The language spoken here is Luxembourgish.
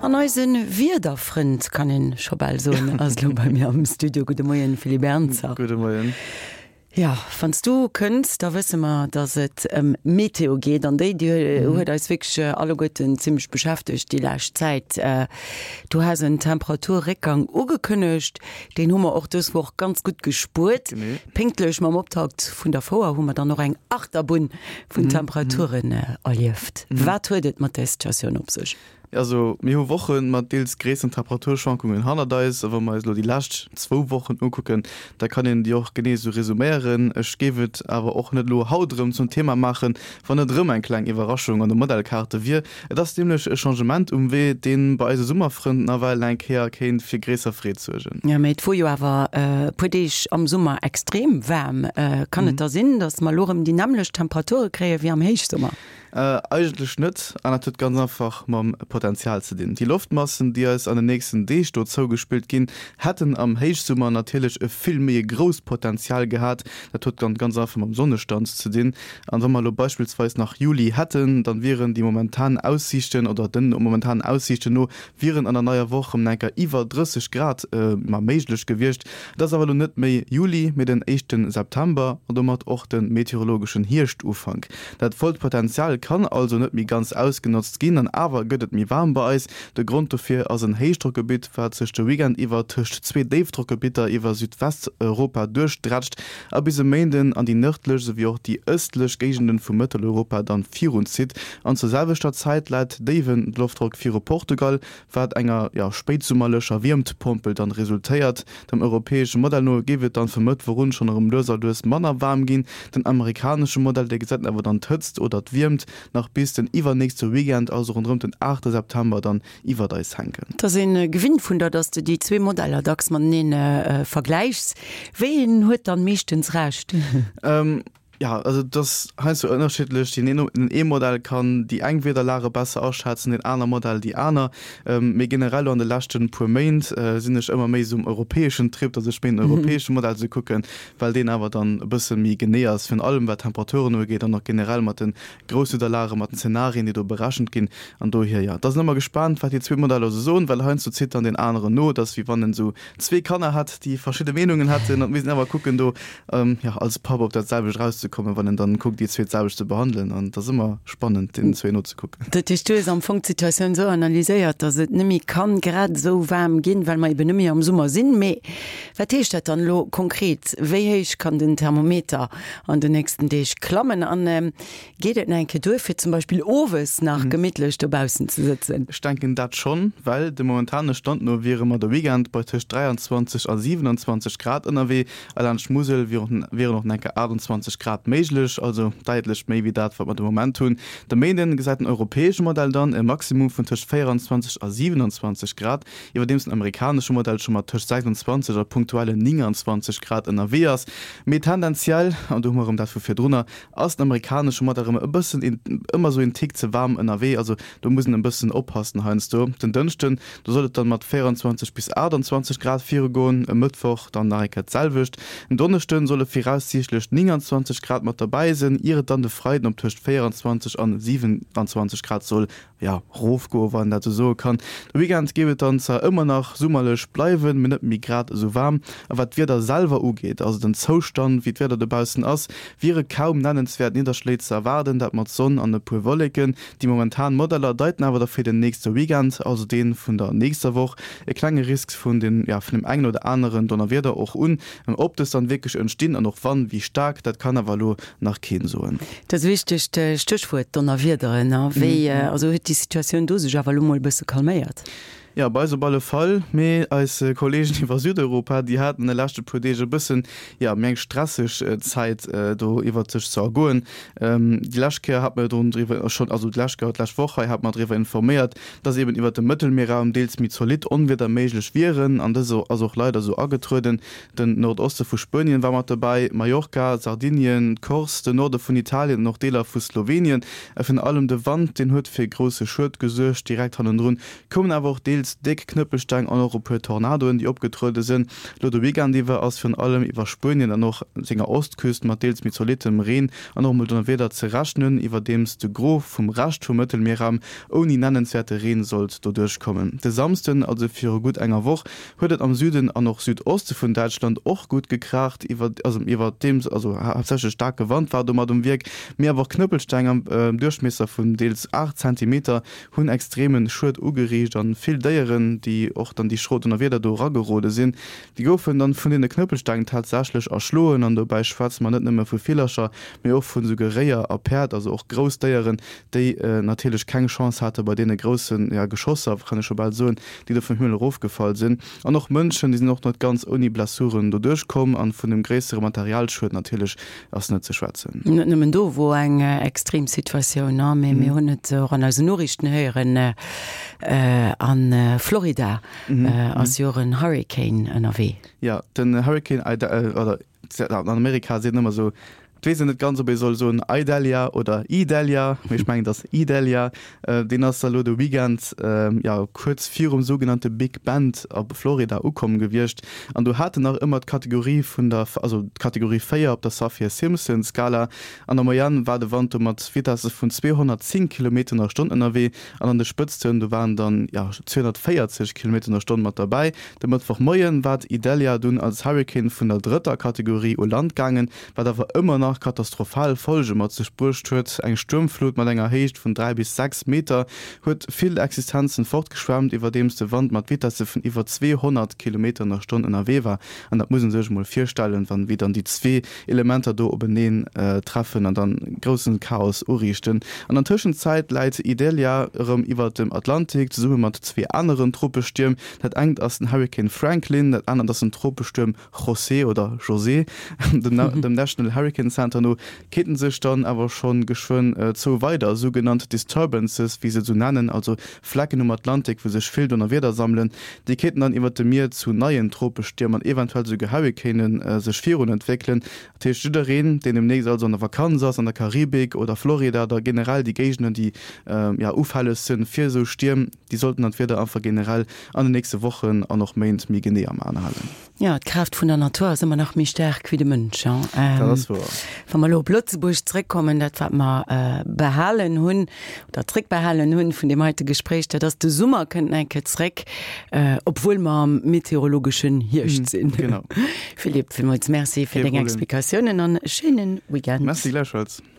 An eise Wiederfrënd, kann een scho bal soen, ass elo bei mir am Studio. Gudde Moien, Philippe Ernzer. Gudde Moien. Jo, wann s du kënns, da wësse mer, dass et ëm Meteo geet. An déi, déi huet eis wierklech alleguerten zimmlech beschäftegt déi lescht Zäit. Du has en Temperaturréckgang ugekënnegt, deen hu mer och dës Woch ganz gutt gespuert. Pénktlech mam Optakt vun der Fouer hu mer dann och eng Achterbunn vun Temperaturen erlieft. Wat huet et mat där Situatioun op sech? Also mir hu Woche mat deels gréisseren Temperaturschwankungen hannert eis, a wa mer eis elo déi lescht zwou Wochen ukucken, da kann een déi och genee esou resuméieren. Ech géif et awer och net elo haut erëm zum Thema maachen, wann net erëm eng kleng Iwwerraschung an de Modellkaarte wier. Et ass nämlech e Changement um Wee, dee bei eise Summerfrënn nawell eng Kéier kéint fir gréisser Freed suergen. Jo, mee et wor jo awer e puer Deeg am Summer extrem waarm. Kann et da sinn, datt mer elo erëm déi nämmlecht Temperature kréie wéi am Héichsummer? Eigentlech net, an dat huet ganz einfach mam Potenzial ze dinn. Déi Loftmassen, déi eis an den nächsten Deeg do zougespillt ginn, hätten am Héichsummer natierlech e vill méi e grousst Potenzial gehat. Dat huet dann ganz einfach mam Sonnestand ze dinn. An wa mer elo beispillsweis nach Juli hätten, dann wieren déi momentan Aussiichten oder den momentanen Aussiichten no wieren an der neier Woch rëm enker iwwer 30 Grad ma méiglech gewiescht. Et ass awer elo net méi Juli, mee den éischte September an domat och de meteorologeschen Hierschtufank. Dat vollt Potenzial kann also net méi ganz ausgenotzt ginn an awer gëtt et méi waarm bei eis. De Grond dofir ass en Héichdrockgebitt, wat sech de Weekend iwwer tëscht zwee Déifdrockgebitter iwwer Südwesteuropa duerchdrätscht a bis e Méinden an déi nërdlech esouwéi och déi ëstlech Géigenden vu Mëtteleuropa dann virunzitt. An zur selwechter Zäit läit déiwen Loftdrock viru Portugal, wat enger, jo, spéitsummerlecher Wiermtpompel dann resultéiert. Dem europäesche Modell no géif et dann vum Mëttwoch un schonn erëm lues a lues manner waarm ginn. Den amerikanesche Modell, dee gesäit awer dann d'Hëtzt oder d'Wiermt nach bis den iwwernächste Weekend, also ronderëm den 8 September dann iwwert eis hänken. Et ass een gewinnt vun der, dass de déi zwee Modeller dacks mateneen vergläichs. Wéi een huet dann meeschtens Recht? Jo, also et ass heiansdo ënnerschiddlech. Deen een, den ee Modell kann déi eng Wiederlage besser aschätzen, deen aner Modell déi aner. Mee generell elo an de leschte puer Méint sinn ech ëmmer méi esou um europäeschen Trip, datt ech méi den europäesche Modell esou kucken, well deen awer dann e bësse méi genee ass, virun allem wat d'Temperaturen ugeet an och generell mat de Grousswiederlage, mat den Zenarien, déi do berechent ginn. An dohier, jo, da sinn ëmmer gespaant, wat déi zwee Modeller esou soen, well heiansdo zitt dann deen aneren no. Et ass wéi wann en esou zwee Kanner hätt, déi verschidde Meenungen hätten, an et misst een awer kucken do, jo, als Papp op dat selwecht erauszekommen, wann en dann kuckt, déi zwee d'selwecht ze behandelen. An et ass ëmmer spannend, deenen zwee nozekucken. Dat heescht, du hues am Fong d'Situatioun esou analyséiert, datt et net méi kann grad esou waarm ginn, well mer eben net méi am Summer sinn. Mee wat heescht dat dann elo konkret? Wéi héich kann den Thermometer an den nächsten Deeg klammen? An Geet et nach eng Kéier duer, fir zum Beispill owes nach gemittlech dobaussen ze sëtzen? Ech denken dat schonn, well dem momentane Stand no wiere mer de Weekend bei tëscht 23 a 27 Grad ënnerwee a laanscht d'Musel wieren och nach eng Kéier 28 Grad méiglech, also däitlech méi wéi dat, wat mer de Moment hunn. De Méinden gesäit den europäesche Modell dann e Maximum vun tëscht 24 a 27 Grad, iwwerdeems den amerikanesche Modell scho mat tëscht 26 a punktuellen 29 Grad ënnerwee ass. Mee tendenziell, an do hu mer erëm dat vu virdrunner, Ass den amerikanesche Modell erëm e bëssen een, ëmmer sou een Tick ze waarm ënnerwee, also do muss een e bëssen oppassen heiansdo. Den Dënschden, do soll et dann mat 24 bis 28 Grad virugoen, e Mëttwoch dann nach eng Kéier d'selwecht. En Donneschden solle viraussiichtlech 29 Grad mat derbäi sinn, ier et dann de Freiden op tëscht 24 an 27 Grad soll jo, rofgoen, wann een dat esou soe kann. De Weekend géif et dann zwar ëmmer nach summerlech bleiwen, mee net méi grad esou waarm. A wat d'Wieder selwer ugeet, also den Zoustand, wéi d'Wieder dobaussen ass, wiere kaum nennenswäert Nidderschléi ze erwaarden, dat mat Sonn an e puer Wolleken. Déi momentan Modeller deiten awer da fir den nächste Weekend, also dee vun der nächster Woch, e klenge Risk vun den, jo, vun dem engen oder aneren Donnerwieder och un. Ob dës dann wierklech entstinn an och wann, wéi staark, dat kann awer elo nach keen soen. Dat wichtegt Stéchwuert, Donnerwiederen. A wéi also huet déi Situatioun do sech awer elo mol e bësse calméiert? Jo, bei eis op alle Fall. Mee eis Kolleegen iwwer Südeuropa, déi haten an de leschte puer Deeg e bëssen, jo, méi eng stresseg Zäit do iwwert sech ze ergoen. Déi lescht Kéier hat mer jo drun driwwer schonn, also déi lescht Kéier, d'lescht Woch hei hat mer driwwer informéiert, dass eben iwwert dem Mëttelmierraum deels méi zolidd Onwieder méiglech wieren. An dës ass och leider esou agetrueden. Den Nordoste vu Spuenien war mat dobäi, Mallorca, Sardinien, d'Corse, den Norde vun Italien an och Deeler vu Slowenien. A virun allem de Wand, deen huet fir grousse Schued gesuergt. Direkt hannendrun koumen awer och deels. deels déck Knëppelsteng an och e puer Tornadoen, déi opgetruede sinn. Lo de Weekend iwwer ass virun allem iwwer Spuenien an och senger Ostküst mat deels méi zolittem Reen an och mol Donnerwieder ze rechnen, iwwerdeems de Gros vum Rescht vum Mëttelmierraum ouni nennenswäerte Reen sollt doduerch kommen. De Samsden, also viru gutt enger Woch, huet et am Süden an och Südoste vun Däitschland och gutt gekraacht, iwwerdeems also haaptsächlech staarke Wand war domat um Wierk, mee awer och Knëppelsteng am Duerchmiesser vun deels 8 Zentimeter hunn extremen Schued ugeriicht an vill Déieren, déi och dann déi schro Donnerwieder do eragerode sinn, déi goufen dann vun deene Knëppelsteng tatsächlech erschloen. An dobäi schwätze mer net nëmme vu Villercher, mee och vun esouguer Réier a Päerd, also och grouss Déieren, déi natierlech keng Chance hate bei deene groussen, ja, Geschosser, kann ech scho bal soen, déi do vum Himmel erofgefall sinn. An och Mënschen, déi sinn och net ganz ouni Blessuren doduerch komm. An vun dem gréissere Materialschued natierlech ass net ze schwätzen. Net nëmmen do wor eng extrem Situatioun, mee mir hunn et och an eisen Noriichten héieren, a Florida ass jo och en Hurricane ënnerwee. Jo, den Hurricane Ida, oder an Amerika seet een ëmmer esou, et weess een net ganz, ob ee soll soen Idalia oder Idalia, mee ech mengen et ass Idalia. Deen ass da elo de Weekend, jo, kuerz virum sougenannte Big Bend op Florida ukomm gewiescht. An do hat en nach ëmmer d'Kategorie vun der, also d'Kategorie 4 op der Saffir-Simpson-Skala. An der Moyenne war de Wand do mat Vitesse vun 210 Kilometer an der Stonn ënnerwee. An an de Spëtzten, do waren dann, jo, 240 Kilometer an der Stonn mat derbäi. De Mëttwochmoie war d'Idalia dunn als Hurrikan vun der drëtter Kategorie u Land gaangen, wat awer ëmmer nach katastrophal Folge mat sech bruecht huet. Eng Stuermflut mat enger Héicht vun 3 bis 6 Meter huet vill Existenzen fortgeschwemmt, iwwerdeems de Wand mat Vitesse vun iwwer 200 Kilometer an der Stonn ënnerwee war. An dat muss ee sech emol virstellen, wann wéi dann déi zwee Elementer do openeen treffen an dann groussen Chaos uriichten. An der Tëschenzäit läit Idalia erëm iwwert dem Atlantik, zesumme mat zwee aneren Tropestierm. Dat engt ass den Hurrikan Franklin, dat anert ass den Tropestuerm José oder José. Dem National Hurricane Center no kéinten sech dann awer schonn geschwënn zwou weider sougenannt Disturbances, wéi se et esou nennen, also Flecken um Atlantik, wou sech vill Donnerwieder sammelen, déi kéinten dann iwwert dem Mier zu neien Tropestierm an eventuell esouguer Hurricane sech virun entwéckelen. Dat heescht, jiddereen, deen demnächst also an der Vakanz ass, an der Karibik oder Florida oder generell déi Géigenden, déi ja ufälleg sinn fir esou Stierm, déi sollten dann d'Wieder einfach generell an den nächste Wochen an och Méint méi genee am An halen. Jo, d'Kraaft vun der Natur ass ëmmer nach méi staark wéi de Mënsch. Dat ass wouer. Wa mer elo op Lëtzebuerg zréckkommen, dat wat mer behalen hunn oder zréckbehalen hunn vun deem heite Gespréich, dat ass, de Summer kënnt nach eng Kéier zréck, obwuel mer am meteorologeschen Hierscht sinn. Genau. Philippe, villmools Merci fir deng Explikatiounen an e schéine Weekend. Merci gläichfalls.